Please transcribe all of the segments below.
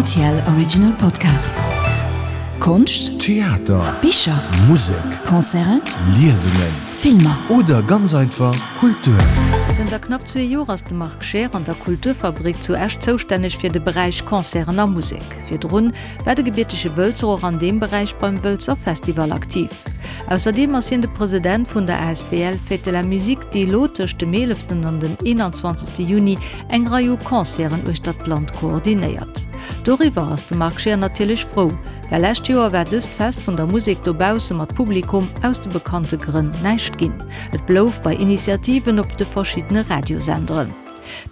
Rtl Original Podcast. Konscht, Theater, Bicher, Musek, Concerten, Liesungen, Filmer. Oder ganz einfach Kultur. Zënter knapp zwee Joer ass de Marc Scheer an der Kulturfabrik zu Esch zoustänneg fir de Beräich Concerten a Musek. Virdrun war de gebiertege Wëlzer och an deem Beräich beim Wëlzer Festival aktiv. Ausserdeem ass hien de President vun der asbl Fête de la Musique, déi elo tëscht dem 11 an dem 21 Juni eng Rei u Concerten uechter d'Land koordinéiert. Doriwwer ass de Marc Scheer natierlech frou, well lescht Joer war dëst Fest vun der Musek dobausse mat Publikum aus de bekannte Grënn näischt ginn. Et blouf bei Initiativen op de verschiddene Radiosenderen.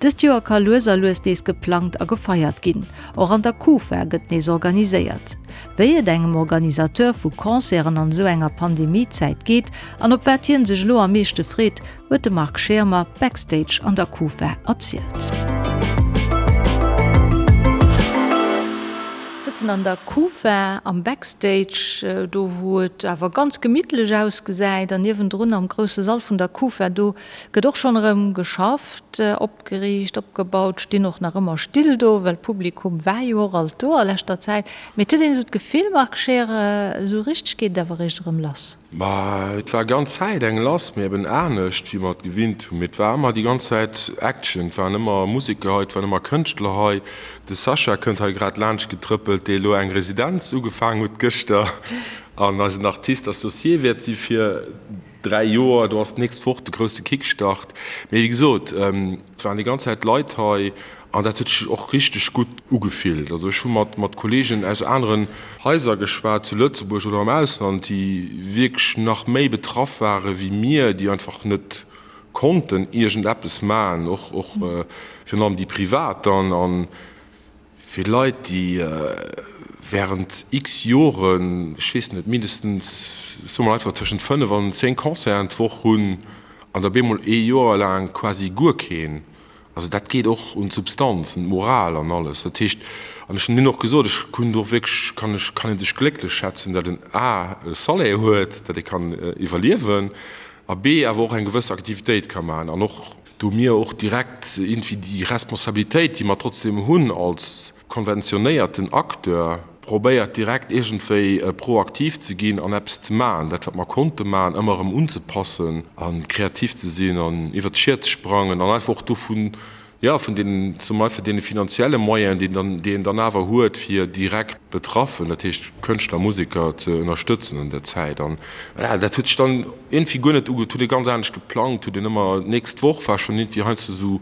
Dëst Joer ka lues a lues nees geplangt a gefeiert ginn. Och an der Kufa gëtt nees organiséiert. Wéi et engem Organisateur vu Concerten an esou enger Pandemie-Zäit geet an op wat hien sech elo am meeschte freet, huet de Marc Schirmer backstage an der Kufa erzielt. Sëtzen an der Kufa am Backstage, do wou et awer ganz gemittlech ausgesäit an niewendrun am grousse Sall vun der Kufa, do gëtt och schonn erëm geschafft, opgeriicht, opgebaut, stinn och nach ëmmer Still do, well d'Publikum war jo och alt do a leschter Zäit. Mee et huet een esou d'Gefill, Marc Scheer, esou richteg geet et awer eréischt erëm lass. Ma et war ganz Zäit eng lass, mee eben anescht wéi mer et gewinnt hunn. Mee et war ëmmer déi ganz Zäit Action, et waren ëmmer Museker hei, et waren ëmmer Kënschtler hei. De Sascha kënnt hei grad laanscht getrëppelt, dee elo eng Residenz ugefaang huet gëschter an eisen Artiste associé wäert si fir 3 Joer. Do ass d'nächst Woch de grousse Kickstart. Mee wéi gesot, et waren déi ganz Zäit Leit hei an dat huet sech och richteg gutt ugefillt. Also ech hu mat mat Kolleegen aus aneren Haiser geschwat, zu Lëtzebuerg oder am Ausland, déi wierklech nach méi betraff ware wéi mir, déi einfach net konnten iergendeppes maachen, och och virun allem déi privat dann. An fir Leit, déi während x Joren, ech weess net, mindestens, soe mer einfach tëschent 5 an 10 Concerten d'Woch hunn an da bemol ee Joer laang quasi guer keen, also dat geet och un d'Substanz, un d'Moral an alles. Dat heescht, an ech hunn hinnen och gesot, ech hunn do wierklech, kann ech, kann ee sech glécklech schätzen, datt en a e Salaire huet, datt ee kann iwwerliewen a b awer och eng gewëss Aktivitéit ka maachen an och do mir och direkt iergendwéi déi Responsabilitéit, déi mer trotzdem hunn als konventionéierten Acteur, probéiert direkt iergendwéi proaktiv ze ginn an eppes ze maachen, dat wat mer konnte maachen, ëmmer erëm unzepassen a kreativ ze sinn an iwwert d'Schier ze sprangen an einfach och dovun, jo, vun deenen, soe mer einfach, deene finanzielle Moyenen, déi dann, déi een dann awer huet, fir direkt Betraffen, dat heescht Kënschtler, Museker ze ënnerstëtzen an där Zäit. An voilà, dat huet sech dann iergendwéi guer net uge, huet ee ganz anescht geplangt, huet een ëmmer, d'nächst Woch war schonn iergendwéi heiansdo esou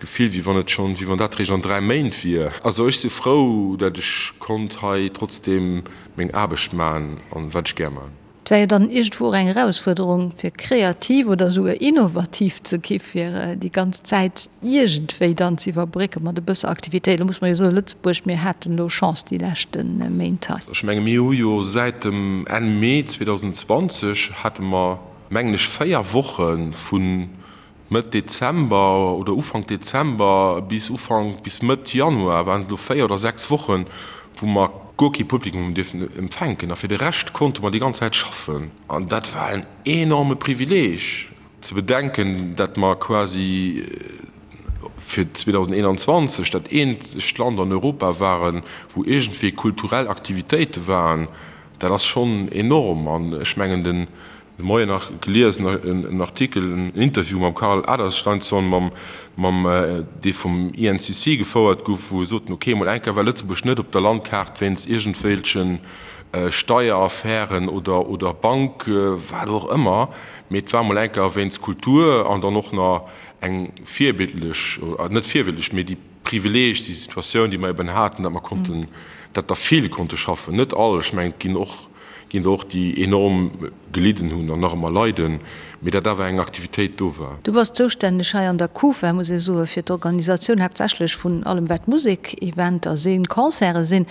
d'Gefill, wéi wann et schonn, wéi wann dat réischt an 3 Méint wier. Also ech si frou, dat ech konnt hei trotzdeem meng Aarbecht man an wat ech gär man. Et war jo dann iergendwou och eng Erausfuerderung, fir kreativ oder esouguer innovativ ze gi fir déi ganz Zäit iergendwéi dann ze iwwerbrécke mat e bësse Aktivitéit. Elo muss mer jo soen, Lëtzebuerg, mir haten elo Chance déi leschte Méint hei. Ech menge mir hu jo säit dem Enn Mee 2020 hate mer, mengen ech, 4 Woche vu Mëtt Dezember oder Ufank Dezember bis Ufank, bis Mëtt Januar waren et elo 4 oder 6 Wochen, wou mer guer kee Publikum hunn dierfen empfänken. A fir de Rescht konnte mer déi ganz Zäit schaffen. An dat war en enorme Privileeg, ze bedenken, dat mer quasi fir 2021 dat eenzegt Land an Europa waren, wou iergendwéi kulturell Aktivitéite waren. Dat ass schonn enorm. An ech mengen, den De Moien nach gelies, en Artikel, en Interview mam Karl Adalsteinsson, mam, mam, dee vum INCC gefouert gouf, wou e soten, ok, mol eng Kéier war Lëtzebuerg net op der Landkaart wéinst iergendwelche Steieraffären oder, oder Bank, wat och ëmmer, mee et war mol eng Kéier wéinst Kultur an dann och nach eng virbildlech, net virbildlech, mee déi Privileeg, déi Situatioun, déi mer eben haten, datt mer konnten, datt der vill konnte schaffen, net all, ech mengen, et ginn och, ginn der och, déi enorm gelidden hunn an nach ëmmer leiden, mee datt awer eng Aktivitéit do war. Du bass zoustänneg hei an der Kufa, muss ee soen, fir d'Organisatioun haaptsächlech vun allem wat Musek-Eventer sinn, Concerte sinn.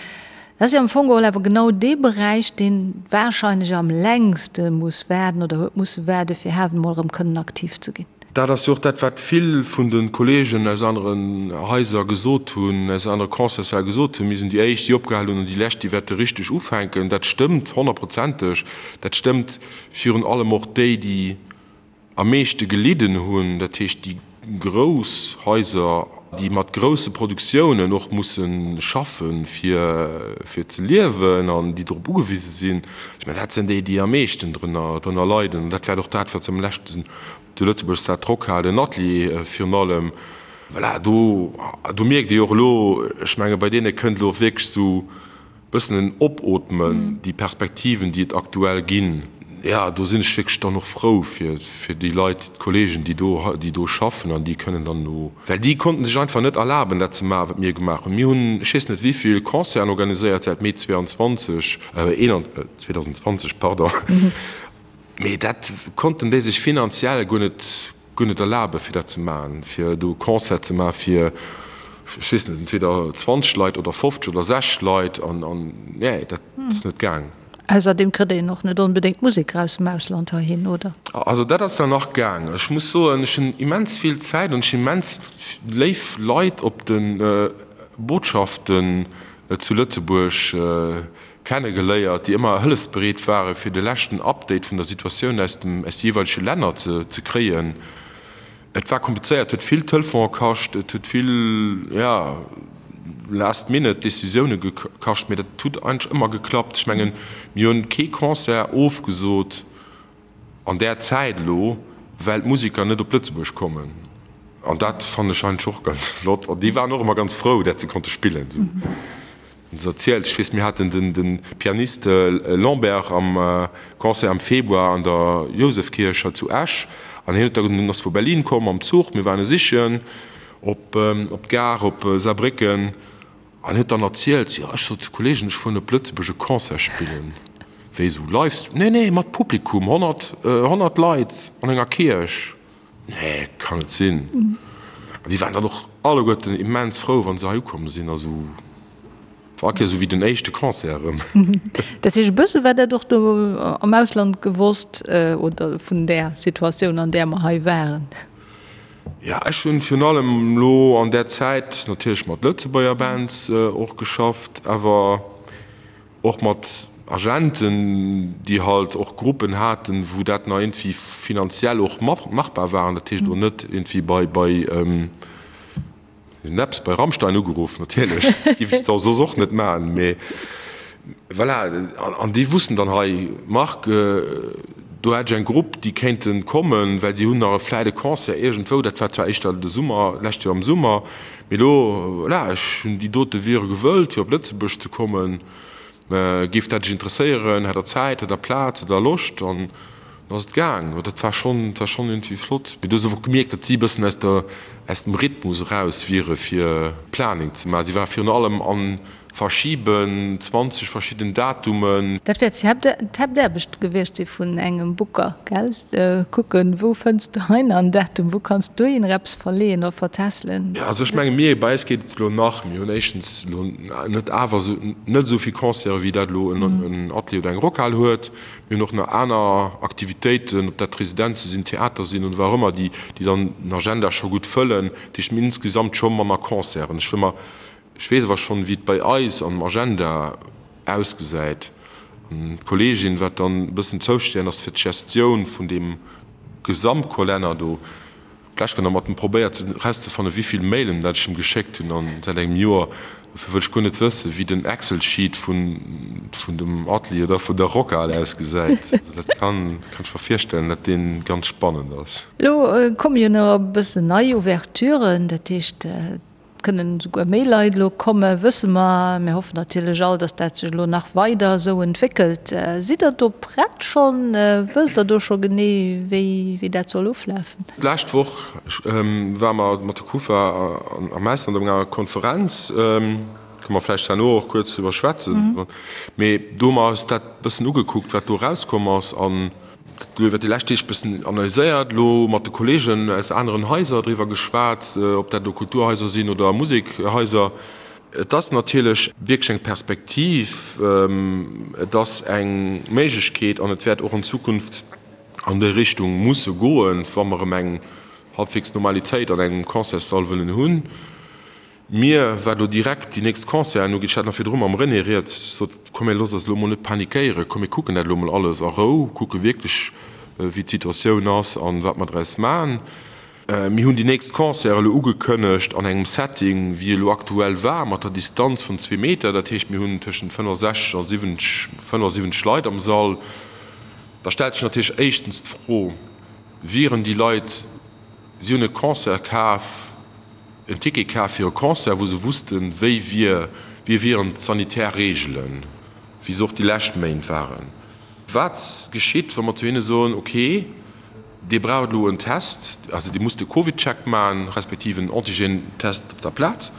Dat ass jo am Fong geholl awer genau dee Beräich, dee warscheinlech am längste muss waarden oder huet musse waarden, fir haut emol erëm kënnen aktiv ze ginn. Dat ass jo och dat, wat vill vun de Kolleegen aus aneren Haiser gesot hunn, aus anere Concertssäll gesot hunn, Mir sinn déi Éischt, déi opgehal hunn, an déi Lescht, déi wäerte richteg ufänken. Dat stëmmt honnertprozenteg. Dat stëmmt virun allem och déi, déi am meeschte gelidden hunn, dat heescht déi grouss Haiser. déi mat grousse Produktiounen och musse schaffen, fir, fir ze liewen an déi drop ugewise sinn, ech mengen, dat sinn déi, déi am meeschten drënner, drënner leiden. An dat wäert och dat, wat se am leschten zu Lëtzebuerg dat d'Rockhal, den Atelier virun allem, voilà, do, do mierkt ee jo och elo, ech menge bei deene kënnt elo wierklech esou bëssen en Opootmen, déi Perspektiven, déi et aktuell ginn, jo, do sinn ech wierklech dann och frou fir, fir déi Leit, d'Kollegen, déi do, déi do schaffen an déi kënnen dann elo, well déi konnten sech einfach net erlaben, dat ze maachen, wat mir gemaach hunn. Mir hunn, ech weess net wéi vill Concerten organiséiert säit Mee 22, 2020, pardon, mee dat konnten déi sech finanziell guer net, guer net erlaben, fir dat ze maachen, fir do e Concert ze maachen fir, ech weess net, entweder 20 Leit oder 50 oder 60 Leit an, an, nee, dat ass net gaang. Ausserdeem kritt een och net onbedéngt Museker aus dem Ausland heihin, oder? Also dat ass dann nach gaang. Ech muss soen, ech hunn immens vill Zäit an ech hunn immens léif Leit op de Botschaften zu Lëtzebuerg kennegeléiert, déi ëmmer hëllefsbereet ware fir de leschten Update vun der Situatioun aus dem aus de jeeweilege Länner ze ze kréien. Et war komplizéiert, huet vill Telefone kascht, et huet vill, ja, last minute Decisioune gekascht, mee dat huet eigentlech ëmmer geklappt. Ech mengen, mir hunn kee Concert ofgesot an där Zäit elo, well d'Musiker net op Lëtzebuerg kommen. An dat fannen ech eigentlech och ganz flott. An déi waren och ëmmer ganz frou, dat se konnte spillen. Hunn se erzielt. Ech weess, mir haten den Pianist Lambert am Concert am Februar an der Jousefkierch hei zu Esch. An hien huet da, hien ass vu Berlin komm mam Zuch, mir waren e sichen op d'Gare op Saarbrécken. An huet dann erzielt, jo ech sot zu Kollegen, ech fueren op Lëtzebuerg e Concert spillen. Wéi esou Livestream? Nee, nee, mat Publikum, 100, 100 Leit an enger Kierch. Nee, kann net sinn. An déi waren dann och alleguerten immens frou, wa se hei ukomm sinn. Also war all Kéier esou wéi den éischte Concert erëm. Dat heescht, e bësse war dat och do am Ausland gewosst oder vun där Situatioun, an där mer hei waren? Jo, ech hunn virun allem elo an där Zäit natierlech mat Lëtzebuerger Bands och geschafft, awer och mat Agenten, déi halt och Gruppen haten, wou dat nach iergendwéi finanziell och machbar war. An dat heescht elo net iergendwéi bei, bei Neps, bei Rammstein ugeruff, natierlech, géif ech soss och net maachen, mee voilà. An déi wussten dann, hei Marc, do hätt ech eng Grupp, déi kéinte kommen, well si hunn nach vläit e Concert iergendwou, dat war zwar éischter de Summer, d'lescht Joer am Summer, Mee elo, voilà, ech hunn déi dote wiere gewëllt, fir op Lëtzebuerg ze kommen. Géif dat Iech interesséieren? Hätt Der Zäit? Hätt Der Plaz? Hätt Der Loscht? An dann ass et gaang. Dat war schonn, dat war schonn iergendwéi flott. Mee du hues och gemierkt, datt si e bëssen aus der, aus dem Rhythmus eraus wiere fir Planning ze maachen. Si ware virun allem an Verschiben, 20 verschidden Datumen. Dat wäert d'Haaptaarbecht gewiescht si vun engem Booker, gell? Kucken, wou fënns de hei nach en Datum, wou kanns du dohinner eppes verleeën oder vertässelen? Jo, also ech menge mir, bei eis geet et elo nach, mir hunn éischtens elo net awer esou, net esou vill Concerte wéi dat elo en Atelier oder eng Rockhal huet. Mir hunn och nach aner Aktivitéiten, ob dat Residenze sinn, Theater sinn oder wat och ëmmer, déi dann den Agenda scho gutt fëllen. Dat heescht, mir hunn insgesamt scho manner Concerten. Ech wëll mer Ech weess awer schonn, wéi et bei eis am Agenda ausgesäit. An d'Kolleegin, wat dann e bëssen zoustänneg ass fir d'Gestioun vun deem Gesamtkolenner do, d'lescht Kéier nach mat em probéiert erauszefannen, wéi vill Mailen dat ech em geschéckt hunn an säit engem Joer. Dofir wëll ech guer net wëssen, wéi den Excel-Sheet vun vun dem Atelier oder vun der Rockhal ausgesäit. Also dat kann kann ech mer virstellen, dat dee ganz spannend ass. Elo komme jo nach e bëssen nei Ouverturen, dat heescht, Et kënnen esouguer méi Leit elo kommen, wësse mer. Mir hoffen natierlech all, dass dat sech elo nach weider esou entwéckelt. Sidd Der do prett schonn? Wësst Der do scho genee, wéi, wéi dat soll oflafen? D'lescht Woch ware mer mat der Kufa am Ausland op enger Konferenz, kënne mer vläicht herno och kuerz driwwer schwätzen. Mee do hu mer eis dat e bëssen ugekuckt, wat do erauskomm ass. An Dat elo iwwer déi lescht Deeg bëssen analyséiert, elo mat de Kolleegen aus aneren Haiser driwwer geschwat, ob dat elo Kulturhaiser sinn oder Musekhaiser. Et ass natierlech wierklech eng Perspektiv, et ass eng Méiglechkeet an et wäert och an Zukunft an déi Richtung musse goen, wa mer erëm eng halbwegs Normalitéit an engem Concertssall wëllen hunn. Mir, wat elo direkt déi nächst Concerten ugeet, ech hat nach virdru mam René rieds, ech sot, komm mir loosse eis elo emol net panikéieren, komm mir kucken dat elo emol alles a Rou, kucke wierklech wéi d'Situatioun ass an wat mer draus maachen. Mir hunn déi nächst Concerte elo ugekënnegt an engem Setting, wéi e lo aktuell war, mat der Distanz vun zwee Meter. Dat heescht, mir hunn tëschent 65 a 70, 75 Leit am Sall. Da stellt sech natierlech éischtens d'Fro, Wieren déi Leit, si hunn e Concert kaf, en Ticket kaf fir e Concert, wou se wussten, wéi wier, wéi wieren d'sanitär Reegelen, wéi se och déi lescht Méint waren. Wat geschitt, wa mer zu hinne soen, okay, Dir braucht elo en Test, also Dir musst de CovidCheck maachen, respektiv en Antigen-Test op der Plaz,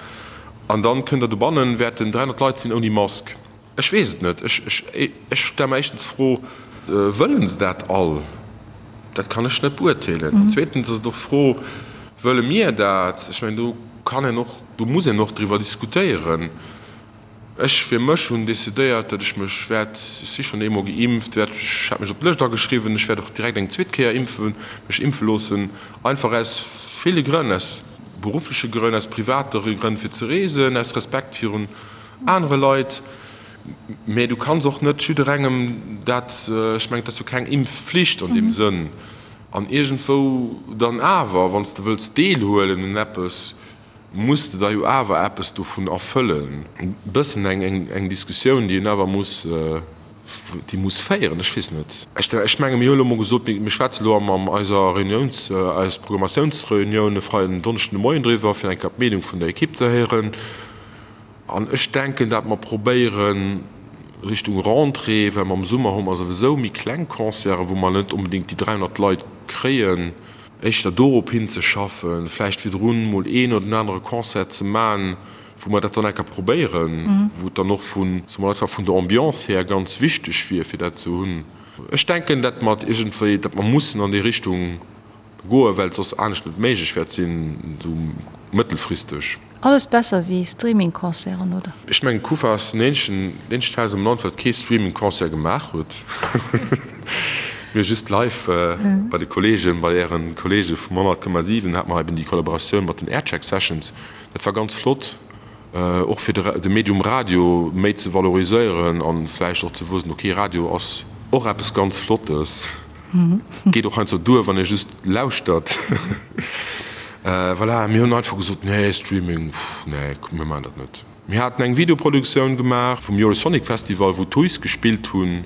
an dann kënnt Der dobannen, wäerten 300 Leit sinn ouni Mask. Ech weess et net. Ech, ech, ech stelle mer éischtens d'Fro, Wëllen se dat all? Dat kann ech net beurteelen. An zweetens ass et och d'Fro, Wëlle mir dat? Ech mengen, do kann een och, do muss een och driwwer diskutéieren. Ech fir mech hunn decidéiert, datt ech mech wäert, ech si schonn eemol geimpft, wäert, ech hat mech op d'Lëscht ageschriwwen, ech wäert och direkt eng zweet Kéier impfen, mech impfe loossen, einfach aus ville Grënn, aus beruffleche Grënn, aus private Grënn fir ze reesen, aus Respekt virun anere Leit. Mä du kanns och net jidderengem dat, ech mengen, et ass jo keng Impfflicht an deem Sënn. An iergendwou dann awer, wann s de wëlls deelhuelen un eppes, muss de da jo awer eppes dovun erfëllen. E bëssen eng Diskussioun, déi een awer muss, déi muss féieren. Ech weess net. Ech menge mir hu elo emol gesot, mir schwätze elo am eiser Reuniouns, eis Programmatiounsreunioun e Freiden, en Donneschden de Moien driwwer, fir eng Kéier d'Meenung vun der Ekipp ze héieren. An ech denken, dat mer probéieren, Richtung Rentrée, well mer am Summer hu mer souwisou méi kleng Concerten, wou mer net onbedéngt déi 300 Leit kréien, éischter dorop hinzeschaffen, vläicht virdrun mol een oder den anere Concert ze man, wou mer dat dann eng Kéier probéieren, wou et dann och vun, soe mer einfach, vun der Ambiance här ganz wichteg wier, fir dat ze hunn. Ech denken, dat mer iergendwéi, dat mer mussen an déi Richtung goen, well et soss anescht net méiglech wäert sinn, esou mëttelfristeg. Alles besser wéi Streaming-Concerten, oder? Ech mengen Kufa ass den eenzegen eenzegt Haus am Land wat kee Streaming-Concert gemaach huet. Mir just live bei de Kollegen, bei ären Kollege vum 100,7 hat mer eben déi Kollaboratioun mat den Aircheck Sessions. Dat war ganz flott, och fir de Medium Radio méi ze valoriséieren an vläicht och ze wëssen, ok Radio ass och eppes ganz Flottes. Geet och heiansdo duer, wann ee just lauschtert. Voilà, mir hunn einfach gesot, nee, Streaming, pff, nee, mir maachen dat net. Mir haten eng Videoproduktioun gemaach vum Eurosonic Festival, wou d'Huys gespillt hunn,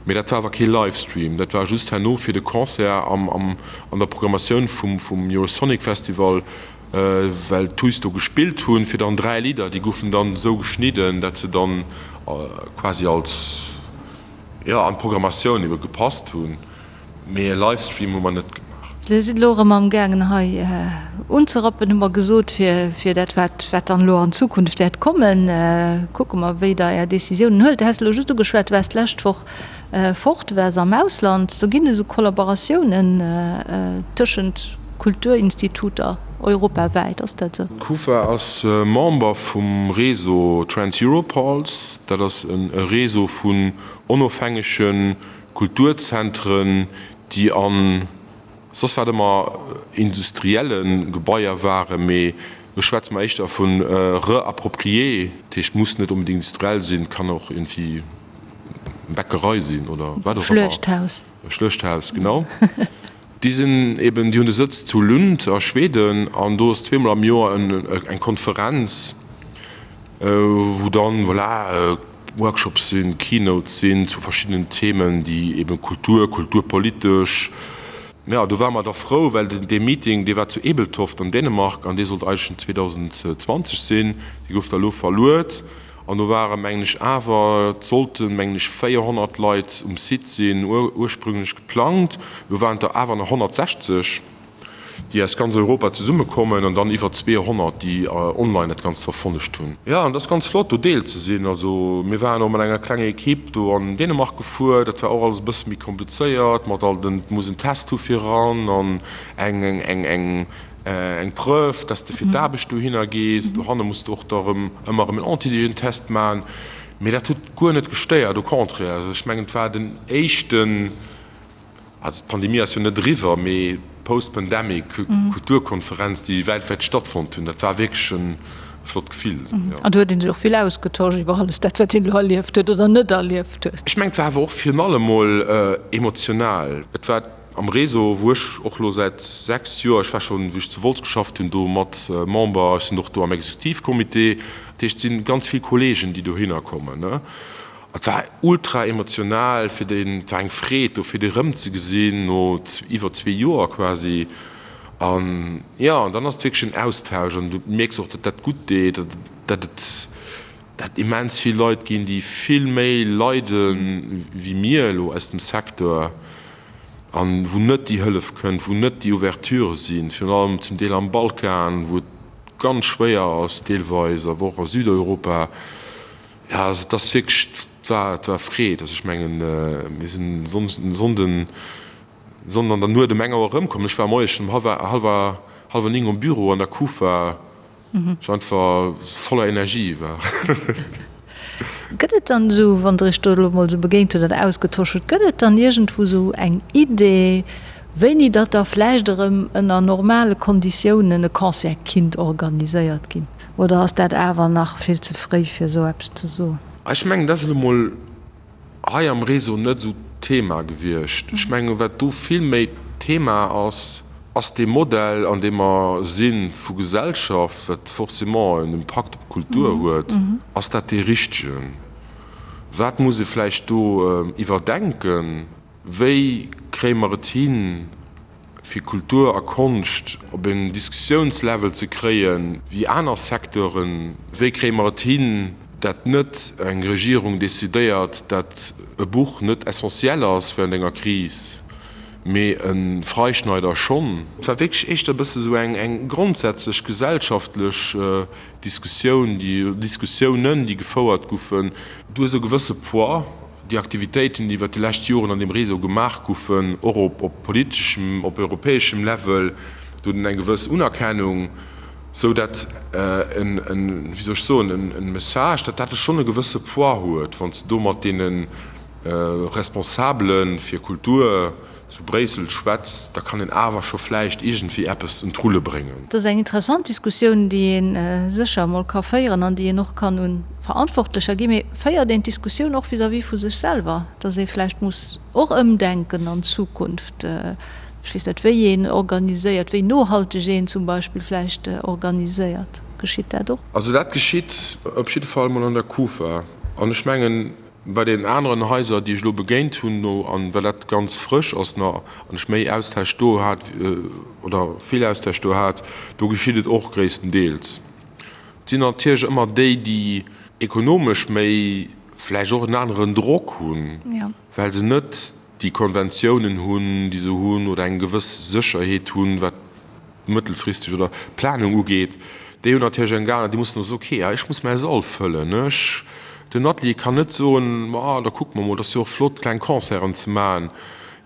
mee dat war awer kee Livestream, dat war just herno fir de Concert am, am, an der Programmatioun vum, vum Eurosonic Festival, well d'Huys do gespillt hunn, fir dann 3 Lidder, déi goufen dann esou geschnidden, dat se dann quasi als. Jo, an d'Programmatioun ebe gepasst hunn, mee e Livestream hu mer net gemaach. Dir sidd elo erëm am gaangen hei unzerappen, hu mer gesot, fir fir dat wat wat dann elo an Zukunft wäert kommen. Kucke mer wéi Der Är Decisiounen huelt. Du has elo just ugeschwat, du waars d'lescht Woch fort, du waars am Ausland. Do ginn esou Kollaboratiounen tëschent Kulturinstituter europawäit, ass dat esou? D'Kufa ass Member vum Réseau Trans-Europe Halls. Dat ass e Réseau vun onofhängege Kulturzentren, déi a soss wat ëmmer industrielle Gebaier waren, mee do schwätze mer éischter vu reapproprié, dat heescht, muss net onbedéngt industriell sinn, kann och iergendwéi eng Bäckerei sinn oder wat och ëmmer. Schluechthaus. E Schluechthaus, genau. Déi sinn eben, déi hunn de Sëtz zu Lund a Schweden an do ass zweemol am Joer eng Konferenz, wou dann, voilà, Workshops sinn, Keynotes sinn zu verschiddenen Themen, déi eben Kultur, kulturpolitesch. Jo, do ware mer da frou, well dee Meeting, dee war zu Ebeltoft an Dänemark an dee sollt eigentlech 2020 sinn, dee gouf da elo verluet. An do ware mengen ech awer, et sollten mengen ech 400 Leit um Site sinn, ursprünglech geplangt, elo waren et der awer nach 160, déi aus ganz Europa zesummekommen an dann iwwer 200, déi online dat Ganzt verfollegt hunn. Jo, an et ass ganz flott do Deel ze sinn. Also mir waren och mat enger klenger Ekipp do an Dänemark gefuer, dat war och alles e bësse méi komplizéiert mat all den, et muss en Test hu fir eran an eng eng eng Eng Preuve, dass de fir d'Aarbecht dohinner gees. Dohanne muss de och da rëm ëmmer erëm en Antigentest maachen. Mee dat huet guer net gestéiert, au contraire. Also ech mengen, et war den éischten, also d'Pandemie ass jo net eriwwer, mee post-pandemic Kulturkonferenz, déi weltwäit stattfonnt hunn. Dat war wierklech e flott Gefill, jo. An do huet ee sech och vill ausgetosch iwwer alles dat, wat een elo erlieft huet oder net erlieft huet. Ech mengen, et war awer och virun allem mol emotional. Et war. Am Réseau, wou ech och elo säit 6 Joer, ech war schonn, wéi ech zu Wolz geschafft hunn, do mat Member, ech sinn och do am Exekutivcomité, dat heescht, et si ganz vill Kollegen, déi dohinner kommen. Et war ultra emotional fir déi, et war eng Freed do fir déi erëmzegesinn no iwwer zwee Joer quasi. An jo, an dann ass et wierklech en Austausch an du mierks och, datt dat gutt deet, datt et, datt immens vill Leit ginn, déi vill méi leide wéi mir elo aus dem Secteur an wou net déi Hëllef kënnt, wou net déi Ouverture sinn, virun allem zum Deel am Balkan, wou et ganz schwéier ass deelweis, awer och a Südeuropa. Jo, also et ass wierklech, et war, et war Freed. Also ech mengen, mir sinn e Sonnden, Sonnden an der Nuet um eng Auer erëmkomm. Ech war moies schonn um hallwer, hallwer, hallwer 9 um Büro an der Kufa. Ech einfach voller Energie war. Gëtt et dann esou, wann Der Iech do elo mol esou begéint hutt an ausgetosch hutt, gëtt et dann iergendwou esou eng Idee, wéini datt da vläicht erëm ënner normale Konditiounen e Concert kinnt organiséiert ginn? Oder ass dat awer nach vill ze fréi fir esou eppes ze soen? Ech mengen, dat ass elo mol hei am Réseau net esou d'Thema gewiescht. Ech mengen, wat do vill méi d'Thema ass, ass dee Modell, an deem mer si vu Gesellschaft, wat forcément en Impakt op d'Kultur huet, ass dat dee richtegen? Wat muss ee vläicht do iwwerdenken? Wéi kréie mer et hin, fir Kultur a Konscht op en Diskussiounslevel ze kréien, wéi aner Secteuren? Wéi kréie mer et hin, dat net eng Regierung decidéiert, dat e Buch net essentiel ass während enger Kris, mee e Freischneider schonn? Et war wierklech éischter e bësse sou eng grondsätzlech gesellschaftlech Diskussioun, déi Diskussiounen, déi gefouert goufen. Du hues e gewësse Poids Déi Aktivitéiten, déi iwwert déi lescht Joren an deem Réseau gemaach goufen, och op politeschem, op europäeschem Level, do huet en eng gewëss Unerkennung, sou dat en, wéi soll ech soen, en Message, datt dat schonn e gewësse Poids huet, wann s de do mat deene Responsabele fir Kultur zu Bréissel schwätzt, da kann een awer scho vläicht iergendwéi eppes un d'Rulle bréngen. Et ass eng interessant Diskussioun, déi ee sécher emol ka féieren an déi een och kann un Verantwortlecher ginn. Mee féiert een d'Diskussioun och vis-à-vis vu sech selwer, datt ee vläicht muss och ëmdenken an Zukunft? Ech weess net, wéi een organiséiert, wéi nohalteg een zum Beispill vläicht organiséiert. Geschitt dat och? Also dat geschitt op jidde Fall emol an der Kufa. An ech mengen, Bei deenen aneren Haiser, déi ech elo begéint hunn, no, an well dat ganz frësch ass nach, an ech méi Austausch do hat, oder vill Austausch do hat, do geschitt et och gréisstendeels. Et sinn natierlech ëmmer déi, déi ekonomesch méi vläicht och en aneren Drock hunn, well se net déi Konventiounen hunn, déi se hunn, oder eng gewëss Sécherheet hunn, wat mëttelfristeg oder Planung ugeet, déi hunn natierlech eng Gar, déi mussen och soen, okay, ech muss mäi Sall fëllen, ech, den Atelier kann net soen, ma da kucke mer mol, et ass jo och flott kleng Concerten ze maachen.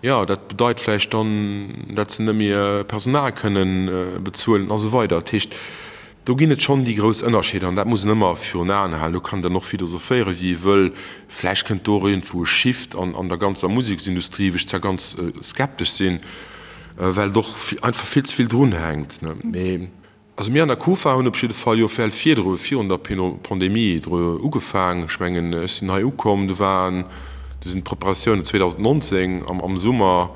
Jo, dat bedeit vläicht dann, dat se net méi Personal kënnen bezuelen a sou weider. Dat heescht, do ginn et schonn déi grouss Ënnerscheeder an dat muss een ëmmer virun Aen halen. Do kann een dann och philosophéieren, wéi ee wëll. Vläicht kënnt do och iergendwou e Shift an der ganzer Museksindustrie, wou ech zwar ganz skeptesch sinn, well et och einfach vill ze vill drun hänkt. Mee also mir an der Kufa hunn op jidde Fall jo well virdru, virun der Pandemie dru ugefaang. Ech mengen, ech sinn hei ukomm, do waren, do sinn d'Preparatiounen 2019 am Summer,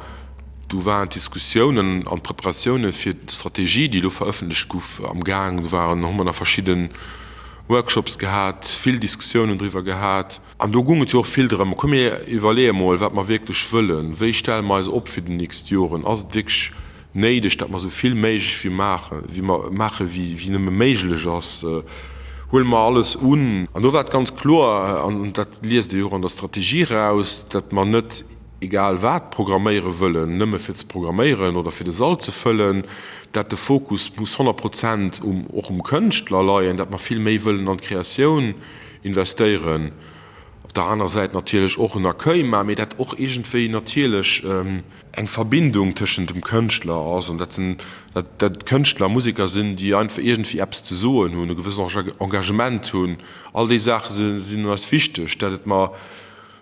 do waren d'Diskussiounen an d'Preparatioune fir d'Strategie, déi elo verëffentlecht guff, am Gaang. Do waren, hu mer nach verschidde Workshops gehat, vill Diskussiounen driwwer gehat. An do gung et jo och vill drëm, komm mir iwwerleeë mol, wat mer wierklech wëllen, wéi stelle mer eis op fir déi nächst Joren, ass et wierklech néideg, datt mer esou vill méiglech wéi maachen, wéi mer maache wéi nëmme méiglech ass, huele mer alles un. An do war et ganz kloer, an dat liest ee jo och an der Strategie eraus, datt mer net egal wat programméiere wëllen, nëmme fir ze programméieren oder fir de Sall ze fëllen, datt de Fokus muss 100 Prozent um, och um Kënschtler leien, datt mer vill méi wëllen an d'Kreatioun investéieren, op der aner Säit natierlech och en Accueil maachen, mee dat och iergendwéi natierlech eng Verbindung tëschent dem Kënschtler ass an dat sinn, dat dat Kënschtler, Museker sinn, déi einfach iergendwéi eppes ze soen hunn, e gewëssen Engagement hunn. All déi Saache sinn eis wichteg, dat et mer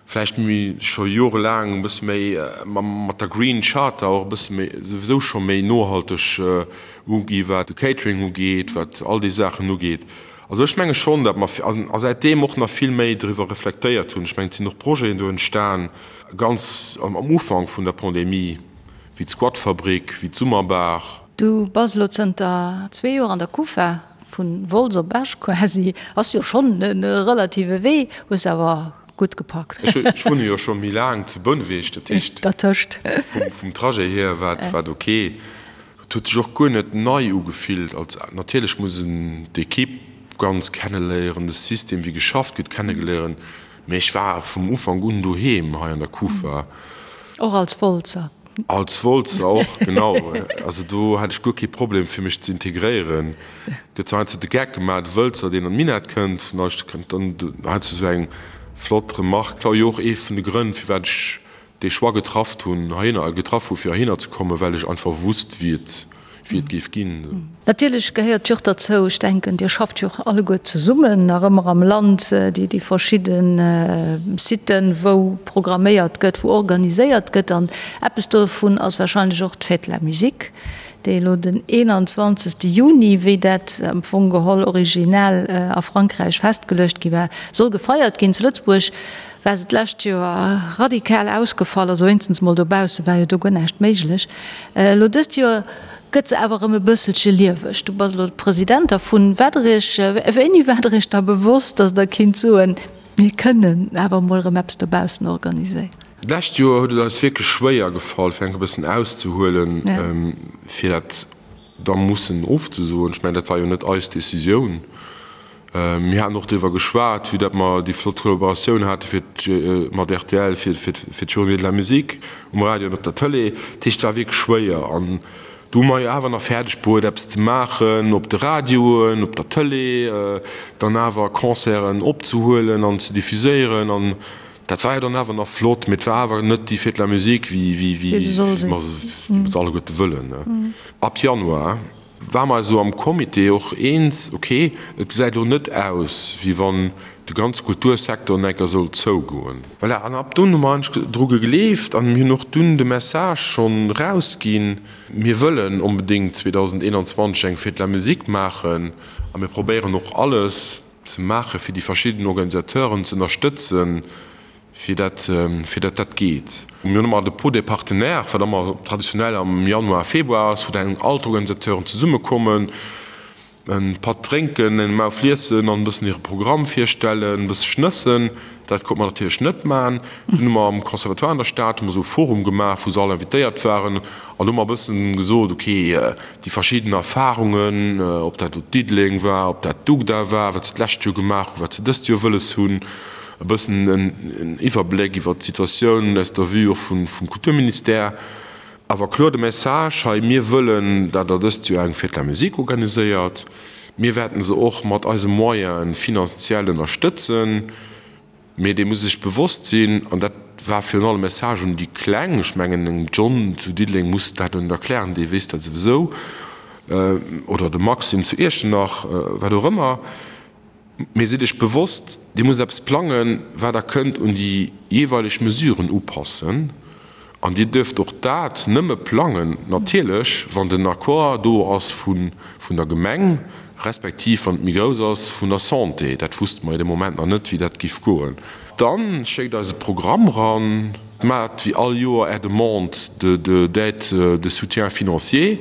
vläicht méi scho jorelaang e bësse méi mat der Green Charter och e bësse méi souwisou scho méi nohalteg ugi wat de Catering ugeet, wat all déi Saachen ugeet. Also ech menge schonn, datt mer a säitdeem och nach vill méi driwwer reflektéiert hunn. Ech mengen, et sinn och Projeten do entstan, ganz am Ufank vun der Pandemie. wéi d'Squatfabrik, wéi d'Summerbar. Du bass elo zënter zwee Joer an der Kufa, vu Wolz op Esch quasi, ass jo schonn e relative Wee, hues awer gutt gepackt. Ech wunne jo scho méi laang zu Bouneweg, dat heescht Dertëscht. vum Trajet hier war et ok. Et huet sech och guer net nei ugefillt. Als natierlech muss en d'Equipe ganz kenneléieren, de System wéi geschafft gëtt kennegeléieren, mee ech war vum Ufank un doheem hei an der Kufa. Och als Wolzer. Als Wolzer och, genau. Also do hat ech guer kee Problem fir mech ze integréieren. Gëtt zwar heiansdo de Geck gemaach, de Wëlzer deen an d'Minett kënnt, vun eis kënnt dann heiansdo esou eng flott Remarque. War jo och ee vun de Grënn firwat ech dee Choix getrafft hunn heihinner, getraff hu fir heihinner ze kommen, well ech einfach wusst wéi et wéi et géif ginn. Natierlech gehéiert jo och derzou, ech denken, Dir schafft jo och alleguer zesummen nach ëmmer am Land, déi déi verschidde Siten, wou programméiert gëtt, wou organiséiert gëtt. An eppes dovun ass wahrscheinlech och d'Fête de la Musique, déi elo den 21. Juni, wéi dat am Fong geholl originell a Frankräich festgeluecht gi war, soll gefeiert ginn. Zu Lëtzebuerg war se d'lescht Joer radikal ausgefall, also wéinstens mol dobausse war jo do guer näischt méiglech. Elo dëst Joer gëtt se awer erëm e bësselche lieweg. Du bass elo President dervun. Waart Der Iech, wéini waart Der Iech da bewosst, datt Der kinnt soen, mir kënnen awer emol erëm eppes dobaussen organiséieren? D'lescht Joer huet et eis wierklech schwéier gefall, fir enk e bëssen auszehuelen, fir dat da mussen ofzesoen. Ech mengen, dat war jo net eis Decisioun. Mir haten och driwwer geschwat, vue dat mer déi flott Kollaboratioun hate fir mat rtl fir fir d'Journée de la musique um Radio an op der Tëlee. Dat heescht, et war wierklech schwéier. An do hu mer jo awer nach fäerdeg bruet, eppes ze maachen op de Radioen, op der Tëlee, dann awer Concerten opzehuelen an ze diffuséieren. An dat war jo dann awer nach flott, mee et war awer net déi Fête de la musique, wéi wéi mer se alleguerte wëllen. Ab Januar Ware mer eis elo am Comité och eens, ok, et gesäit elo net aus, wéi wann de ganze Kultursecteur an enker sollt zougoen. Voilà, an ab dunn hu mer eigentlech dru gegleeft an mir hunn och dunn de Message schonn erausginn, mir wëllen onbedéngt 2021 eng Fête de la Musique maachen a mir probéieren och alles ze maachen, fir déi verschidden Organisateuren ze ënnerstëtzen, fir dat fir dat dat geet. Mir hunn ëmmer de Pot des partenaires, wat ëmmer traditionell am Januar, Februar ass, wou dann all d'Organisateuren zesummekommen, e Patt drénken, eng Mauf liessen an e bëssen hire Programm virstellen, e bësse schnëssen. Dat konnt mer natierlech net maachen. Dunn hu mer am Conservatoire an der Stad hu mer esou e Forum gemaach, wou se all invitéiert waren an do hu mer e bëssen gesot, ok, déi verschidden Erfarungen, ob dat elo Diddeleng war, ob dat d'UGDA war, wat se d'lescht Joer gemaach hunn, wat se dëst Joer wëlles hunn, e bëssen en Iwwerbléck iwwert d'Situatioun aus der Vue och vum Kulturministère. Awer kloer de Message hei, Mir wëllen, dat Der dëst Joer eng Fête de la Musique organiséiert. Mir wäerten se och mat eise Moyene finanziell ënnerstëtzen. Mee Dir musst Iech bewosst sinn, an dat war virun allem e Message un déi Kleng, ech mengen engem John zu Diddeleng muss dat net erklären, dee weess dat souwisou, oder dem Maxime zu Iechternach, wat och ëmmer, Mee sidd Iech bewosst, Dir musst eppes plangen, wat Der kënnt un déi jeeweileg Mesuren upassen. An Dir duerft och dat nëmme plangen, natierlech, wann den Accord do ass vun der Gemeng, respektiv, wann et méi grouss ass, vun der Santé. Dat wusste mer jo dee Moment nach net, wéi dat giff goen. Da schéckt eis e Programm eran, maacht wéi all Joer Är Demande de d'aide de soutien financier.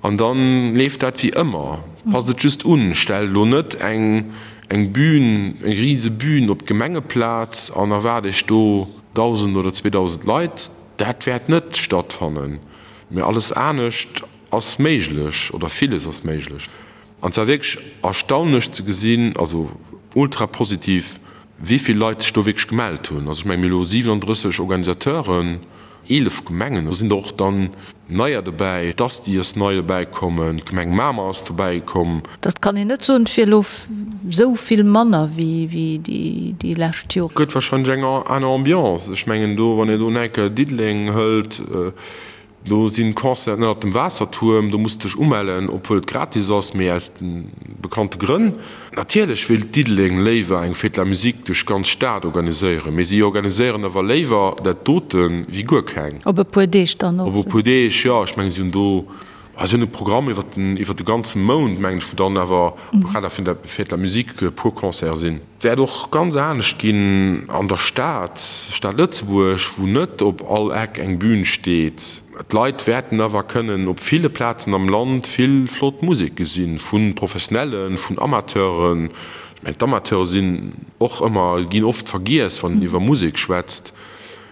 An dann leeft dat wéi ëmmer. Passt et just un, stellt elo net eng eng Bühn, eng rise Bühn op d'Gemengeplaz an erwaart iech do 1.000 oder 2.000 Leit. Dat wäert net stattfannen. Mee alles anescht ass méiglech, oder villes ass méiglech. An et war wierklech erstaunlech ze gesinn, also ultra positiv, wéi vill Leit sech do wierklech gemellt hunn. Also ech mengen, mir hu elo 37 Organisateuren. 11 Gemengen, do sinn der och dann neier dobäi, d'Asti ass nei dobäi kommen, d'Gemeng Mamer ass dobäi komm. Dat kann een net soen, et wier elo esou vill manner wéi déi lescht Joren. Gëtt wahrscheinlech eng aner Ambiance. Ech mengen do, wann een do enke Diddeleng hëlt, Do sinn Concerten ënnert dem Waassertuerm, do muss de dech umellen, obwuel et gratis ass, mee aus de bekannte Grënn. Natierlech wéilt Diddeleng léiwer eng Fête de la Musique duerch d'ganz Stad organiséieren, mee si organiséieren awer léiwer dat dote wéi guer keng. Op e puer Deeg dann och. Op e puer Deeg, jo. Ech mengen, si hunn do, si hunn e Programm iwwer den, iwwer de ganze Mount, mengen ech, wou dann awer am Kader vun der Fête de la Musique e puer Concerte sinn. Wäert och ganz anescht ginn an der Stad, Stad Lëtzebuerg, wou net op all Eck eng Bühn steet. D'Leit wäerten awer kënnen op ville Plazen am Land vill flott Musek gesinn, vu Professionellen, vun Amateuren. Ech mengen, d'Amateure sinn och ëmmer, ginn oft vergiess, wann een iwwer Musek schwätzt.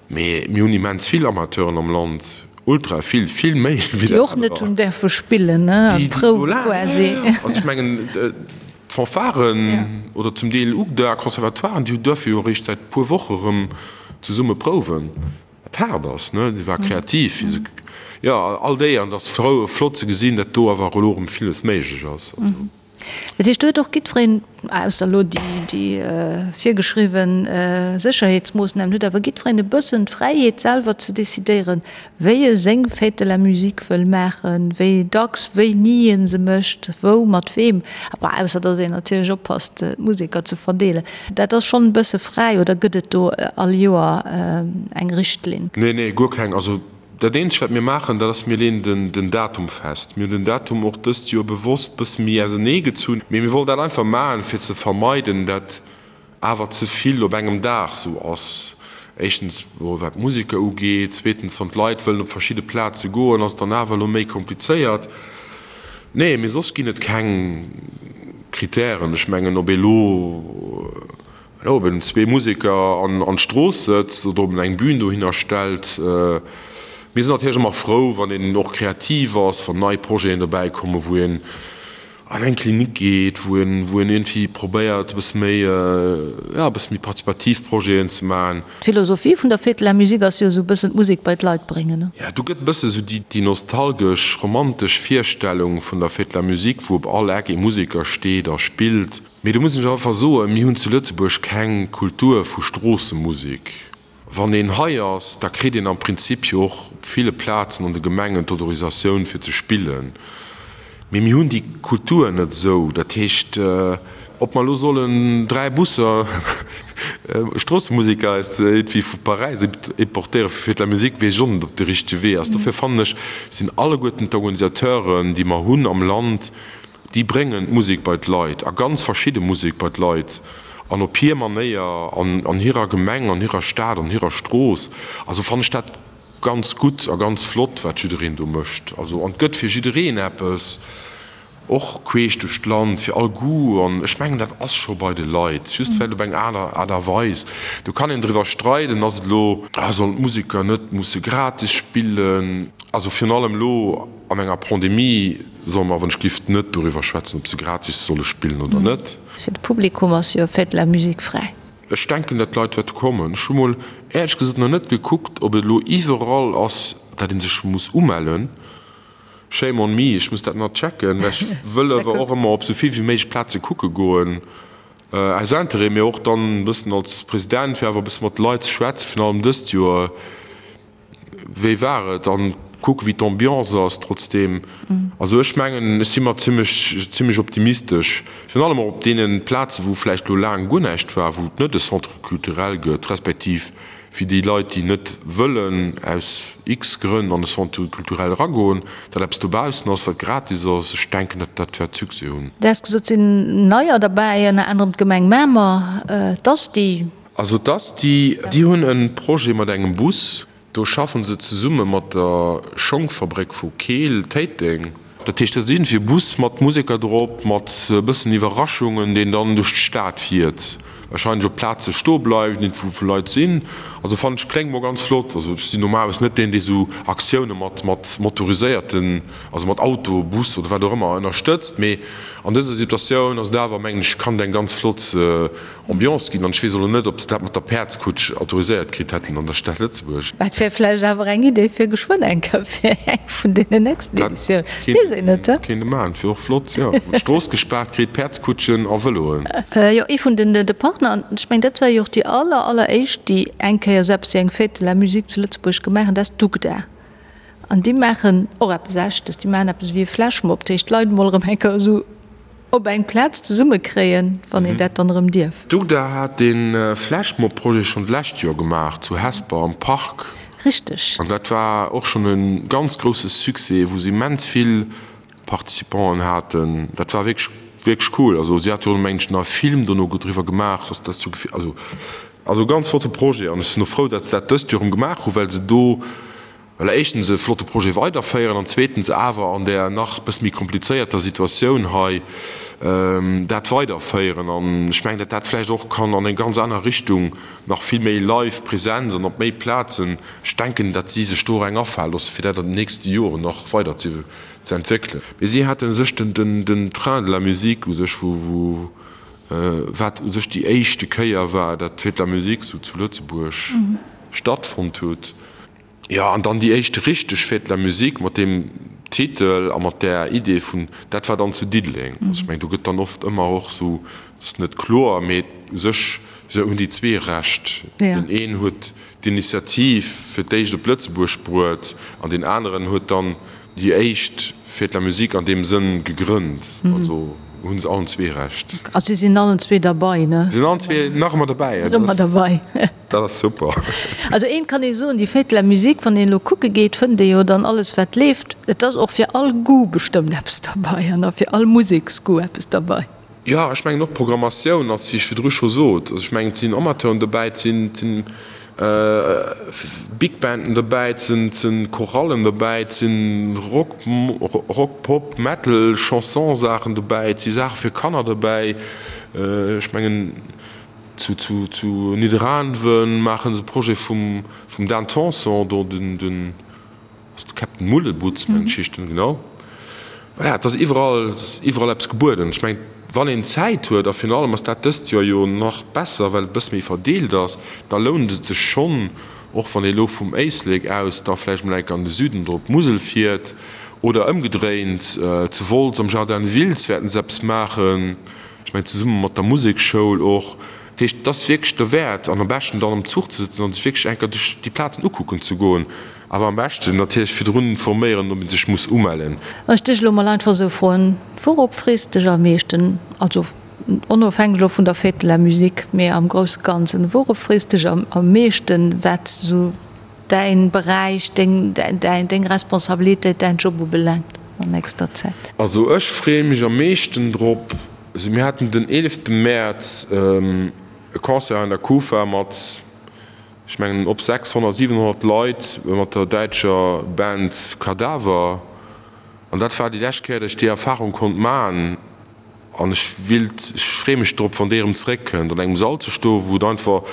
Mee mir hunn immens vill Amateuren am Land, ultra vill, vill méi wéi dat. Déi och net hunn däerfe spillen, ne, a prouwe quasi. Also ech mengen, d'Fanfaren oder zum Deel UGDA, Conservatoiren, déi duerfe jo eréischt säit e puer Woche erëm zesumme prouwen. Wat haart ass, ne, déi war kreativ, jo, all déi, an et ass frou, flott ze gesinn, datt do awer elo erëm villes méiglech ass. Also. Dat heescht, do huet och jiddwereen, ausser elo déi virgeschriwwe Sécherheetsmoossnamen, huet awer jiddwereen e bëssen d'Fräiheet selwer ze decidéieren, wéi e seng Fête de la musique wëll maachen, wéi dacks, wéini e se mécht, wou, mat weem, awer ausser datt een natierlech oppasst, d'Museker ze verdeelen. Dat ass schonn e bësse fräi, oder gëtt et do all Joer eng Richtlinn? Nee, nee, guer keng. Also dat eenzegt, wat mir maachen, dat ass, mir leeën den Datum fest. Mir hunn den Datum och dëst Joer bewosst e bësse méi ausenee gezunn, mee mir wollten dat einfach maachen, fir ze vermeiden, dat awer ze vill op engem Dag sou ass. Éischtens wat d'Museker ugeet, zweetens wann d'Leit wëllen op verschidde Plaze goen, ass et dann awer elo méi komplizéiert. Nee, mee soss ginn et keng Kritären. Ech mengen, ob ee lo, elo ob een zwee Museker an d'Strooss sëtzt oder ob en eng Bühn dohinner stellt. Mir sinn natierlech ëmmer frou, wann een och kreativ ass, wann nei Projeten dobäi kommen, wou een an eng Klinik geet, wou een, wou een iergendwéi probéiert e bësse méi, jo, e bësse méi participativ Projeten ze maachen. D'Philosophie vun der Fête de la Musique ass jo esou e bëssen d'Musek bei d'Leit bréngen, ne? Jo, do gëtt e bësse esou déi, déi nostalgesch, romantesch Virstellung vun der Fête de la Musique, wou op all Eck ee Museker steet a spillt. Mee do muss ech einfach soen, mir hunn zu Lëtzebuerg keng Kultur vu Stroossemusek. Wann een hei ass, da kritt een am Prinzip jo och op ville Plazen an de Gemengen d'Autorisatioun fir ze spillen. Mee mir hunn déi Kultur net esou. Dat heescht, ob mer elo sollen 3 Busser Stroossemuseker aus iergendwéi vu Paräis importéiere fir Fête de la Musique, weess ech och net, ob de richtege Wee ass. Dofir fannen ech, sinn alleguerten d'Organisateuren, déi mer hunn am Land, Déi bréngen d'Musek bei d'Leit, a ganz verschidde Musek bei d'Leit, an op hir Manéier, an an hirer Gemeng, an hirer Stad, an hirer Strooss. Also fannen ech dat ganz gutt a ganz flott, wat jiddereen do mécht. Also, an et gëtt fir jiddereen eppes, och queesch duerch d'Land, fir all Goût. An ech mengen, dat ass scho bei de Leit, just vläicht op eng aner Aart a Weis. Do kann een driwwer streiden, ass et elo, sollen d'Museker net musse gratis spillen? Also virun allem elo an enger Pandemie solle mer wann-ech-gift net doriwwer schwätzen, ob se gratis solle spillen oder net. Fir de Publikum ass jo Fête de la Musique fräi. Ech denken, datt d'Leit wäerte kommen. Ech hu mol éierlech gesot nach net gekuckt, ob et elo iwwerall ass, datt ee sech muss umellen. Shame on me, ech muss dat nach checken, well ech wëll awer och ëmmer op esou vill wéi méiglech Plaze kucke goen, aus Interêt, mee och dann e bëssen als President, fir awer e bësse mat de Leit ze schwätzen, virun allem dëst Joer. Wéi war et? An kucke wéi d'Ambiance ass trotzdeem. Also ech mengen, ech si mer zimmlech, zimmlech optimistesch. Virun allem och op deene Plaze wou vläicht elo laang guer näischt war, wou et net e Centre culturel gëtt, respektiv fir déi Leit, déi net wëllen aus x-Grënn an e Centre culturel eragoen, datt eppes dobaussen ass, wat gratis ass. Ech denken, dat dat wäert Succès hunn. Du has gesot, et sinn neier derbäi, ënner anerem d'Gemeng Mamer, d'Asti. Also d'Asti, déi hunn e Projet mat engem Bus. Do schaffen se zesumme mat der Schongfabréck vu Keel, Téiteng. Dat heescht, dat ass iergendwéi e Bus mat Museker drop, mat e bëssen Iwwerraschungen, deen dann duerch d'Stad fiert, warscheinlech op Plaze stoe bleift, wou wou Leit sinn. Also fannen ech, kléngt mol ganz flott. Also ech sinn normalerweis net deen, dee sou Aktioune mat mat motoriséierten, also mat Auto, Bus oder wat och ëmmer ënnerstëtzt, mee an dëser Situatioun ass et awer, mengen ech, kann et eng ganz flott Ambiance ginn. An ech weess elo net, ob se dat mat der Päerdskutsch autoriséiert kritt hätten an der Stad Lëtzebuerg. Dat wär vläicht awer eng Idee fir geschwënn eng Kéier fir eng vun deenen nächsten Editiounen. Weess een net, he? Kéint e maachen, dat wier och flott, jo. D'Strooss gespaart kritt, Päerdskutschen a Vëloen. Jo, ee vun den de Partner, an ech mengen, dat war jo och déi aller, alleréischt, déi eng Kéier esou eppes wéi eng Fête de la Musique zu Lëtzebuerg gemaach hunn, dat ass d'UGDA. An déi maachen och eppes Echtes, déi maachen eppes ewéi e Flashmob, dat heescht d'Leit emol erëm eng Kéier esou op eng Plaz zesumme kréien, wann een dat dann erëm dierf. D'UGDA hat dee Flashmob-Projet schonn d'lescht Joer gemaach zu Hesper am Park. Richteg. An dat war och schonn e ganz grousse Succès, wou se immens vill Participanten haten. Dat war wierklech, wierklech cool. Also si hate jo, mengen ech, nach e Film dono driwwer gemaach, dass dat sou, also, also ganz flotte Projet. An ech sinn och frou, datt se dat dëst Joer erëm gemaach hunn, well se do. Voilà, éischtens e flotte Projet weiderféieren an zweetens awer an där nach e bësse méi komplizéierter Situatioun hei dat weiderféieren. An ech mengen, datt dat vläicht och kann an eng ganz aner Richtung, nach vill méi live Präsenz an op méi Plazen, ech denken, datt si sech do och eng afale loosse fir dat an den nächste Joren nach weider ze entwéckelen. Mee si hate sech den Train de la musique u sech, wou wat u sech déi éischte Kéier war, datt d'Fête de la musique sou zu Lëtzebuerg stattfonnt huet. Jo, an dann déi éischt richteg Fête de la musique mat deem Titel a mat där Idee vun, dat war dann zu Diddeleng. Also ech mengen, do gëtt dann oft ëmmer och esou, dat ass net kloer, mee u sech hunn déi zwee Recht. Deen een huet d'Initiativ fir d'éischt op Lëtzebuerg bruet an deen aneren huet dann déi éischt Fête de la musique an deem Sënn gegrënnt. Also hu se allen zwee Recht. A si sinn allen zwee derbei, ne? Si sinn allen zwee nach ëmmer derbäi. Nach ëmmer derbei. Dat ass super. Also eent kann ee soen, déi Fête de la musique, wann een elo kucke geet, fënnt ee jo dann alles wat leeft. Et ass och fir all Goût bestëmmt eppes derbei an a fir all Museksgoût eppes derbei. Jo, ech mengen och d'Programmatioun ass, wéi ech virdru scho sot, also ech mengen et sinn Amateuren dobäi, et sinn, et sinn Big Banden dobäi, et sinn, et sinn Chorallen dobäi, et sinn Rock, Rock, Pop, Metal, Chanson-Saachen dobäi, et si Saache fir Kanner dobäi. Ech mengen. Zu zu Nidderaanwen maachen se e Projet vum vum Dan Tanson, do den den ass de Captain Mullebutz mengen ech heescht en, genau. Voilà, et ass iwwerall iwwerall eppes gebueden. Ech mengen, wann een Zäit huet, a virun allem ass dat dëst Joer jo nach besser, well et e bësse méi verdeelt ass, da lount et sech schonn, och wann ee lo vum Éislek aus da vläicht mol enk an de Süden oder op d'Musel fiert oder ëmgedréint, zu Wolz am Jardin de Wiltz wäerten se eppes maachen. Ech mengen zesumme mat der Museksschoul och. Dat heescht, et ass wierklech derwäert an am beschten dann am Zuch ze sëtzen an sech wierklech enker duerch déi Plazen ukucken ze goen. Awer am beschten natierlech virdrun informéieren, ob ee sech muss umellen. Wann ech dech elo mol einfach esou froen, Wourop frees de dech am meeschten? Also onofhängeg elo vun der Fête de la Musique, mee am grousse Ganzen, wourop frees de dech am meeschten, wat esou däin Beräich, deng, deng Responsabilitéit, däin Job ubelaangt an nächster Zäit? Also ech freeë mech am meeschten drop, also mir haten den 11 Mäerz e Concert an der Kufa mat, ech mengen op 600, 700 Leit mat der däitscher Band Kadaver an dat war déi lescht Kéier, datt ech déi Erfarung konnt man an ech willt, ech freeë mech drop, wann déi erëm zeréckkënnt, an engem Sall ze stoen, wou et einfach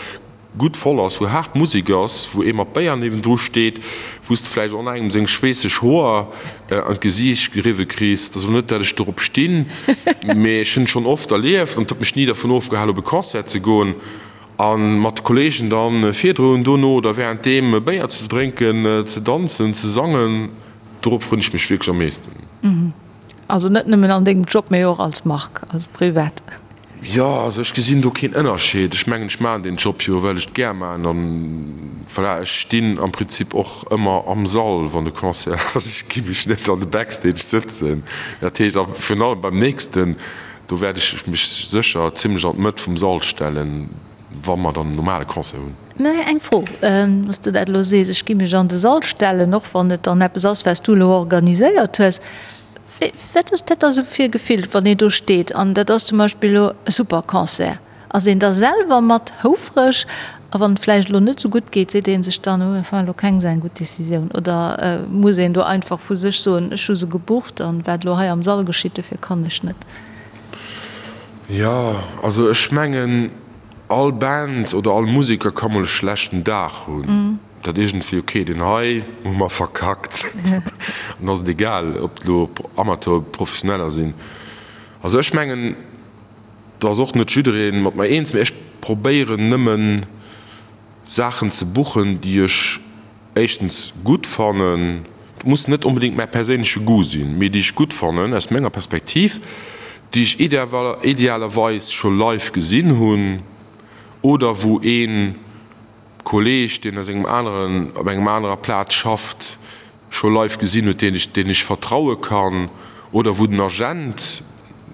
gutt voll ass, wou haart Musek ass, wou ee mat Béier niewendru steet, wou s de vläicht och nach engem seng schweesseg Hoer an d'Gesiicht geriwwe kriss. Et ass elo net, dat ech dorop stinn, mee ech hunn et schonn oft erlieft an et huet mech ni dervun ofgehalen, op e Concert ze goen a mat de Kolleegen dann virdrun, dono oder wärenddeem e Béier ze drénken, ze danzen, ze sangen. Dorop frënn ech mech wierklech am meeschten. Also net nëmmen an dengem Job, mee och als Marc, als privat. Jo, also ech gesinn do keen Ënnerscheed. Ech mengen, ech maachen deen Job jo, well ech et gär maachen an voilà, ech stinn am Prinzip och ëmmer am Sall, wann de Concert ass. Ech gi mech net an de Backstage sëtzen. Dat heescht, a virun allem beim nächsten, do wäert ech mech sécher zimlech an d'Mëtt vum Sall stellen, wa mer dann en normale Concert hunn. Mä eng Fro, wann s de dat elo sees, ech gi mech an de Sall stellen, och wann et dann eppes ass, wat s du elo organiséiert hues, Wat ass dat da sou fir e Gefill, wann een do steet an dat ass zum Beispill elo e super Concert? Ass een da selwer mat houfreg? A wann et vläicht elo net sou gutt geet, seet ee sech dann, oh dat war elo keng sou eng gutt Decisioun? Oder muss een do einfach vu sech soen, ech hu se gebucht an wat elo hei am Sall geschitt, dofir kann ech net? Jo, also ech mengen all Band oder all Museker ka mol e schlechten Dag hunn. Dat iergendwéi, ok, deen hei hu mer verkackt. An da ass et egal, ob et elo Amateur oder Professioneller sinn. Also ech mengen, do ass och net jidderee mat mer eens, mee ech probéieren nëmmen Saachen ze buchen, déi ech éischtens gutt fannen, et muss net onbedéngt mäi perséinleche Goût sinn, mee déi ech gutt fannen aus menger Perspektiv, déi ech idealerweis scho live gesinn hunn oder wou ee Kolleeg, deen aus engem aneren, op engem anerer Plaz schafft, scho live gesinn huet, deen ech, deen ech vertraue kann, oder wou den Agent,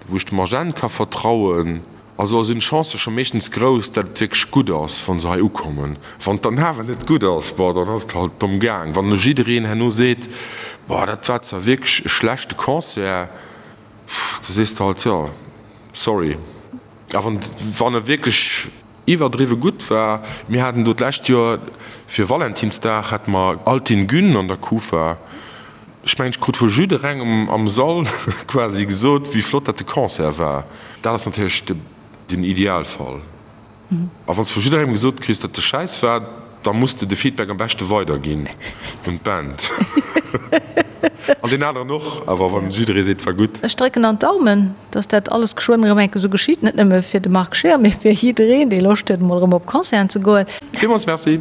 wou ech dem Agent ka vertrauen. Also sinn d'Chancë scho meeschtens grouss, dat et wierklech gutt ass, wa se hei ukommen. Wann et dann awer net gutt ass, bon, dann ass et halt domm gaang. Wann elo jiddereen herno seet, boah, dat war zwar wierklech e schlechte Concert, da sees de halt, jo, sorry. A wann, wann e wierklech. iwwerdriwwe gutt war. Mir haten do d'lescht Joer fir Valentinsdag hate mer Altin Gün an der Kufa. Ech mengen, ech krut vu jidderengem am Sall quasi gesot, wéi flott dat de Concert war. Dat ass natierlech den Idealfall. A wann s de vu jidderengem gesot kriss, datt de Schäiss war, da muss de de Feedback am beschte weiderginn un d'Band. An deen aneren och, awer wann jidderee seet, war gutt. Ech drécken an d'Daumen, datt dat alles geschwënn erëm enke sou geschitt, net nëmme fir de Marc Scheer, mee fir jiddereen, dee Loscht huet, emol erëm op Concerten ze goen. Villmools Merci.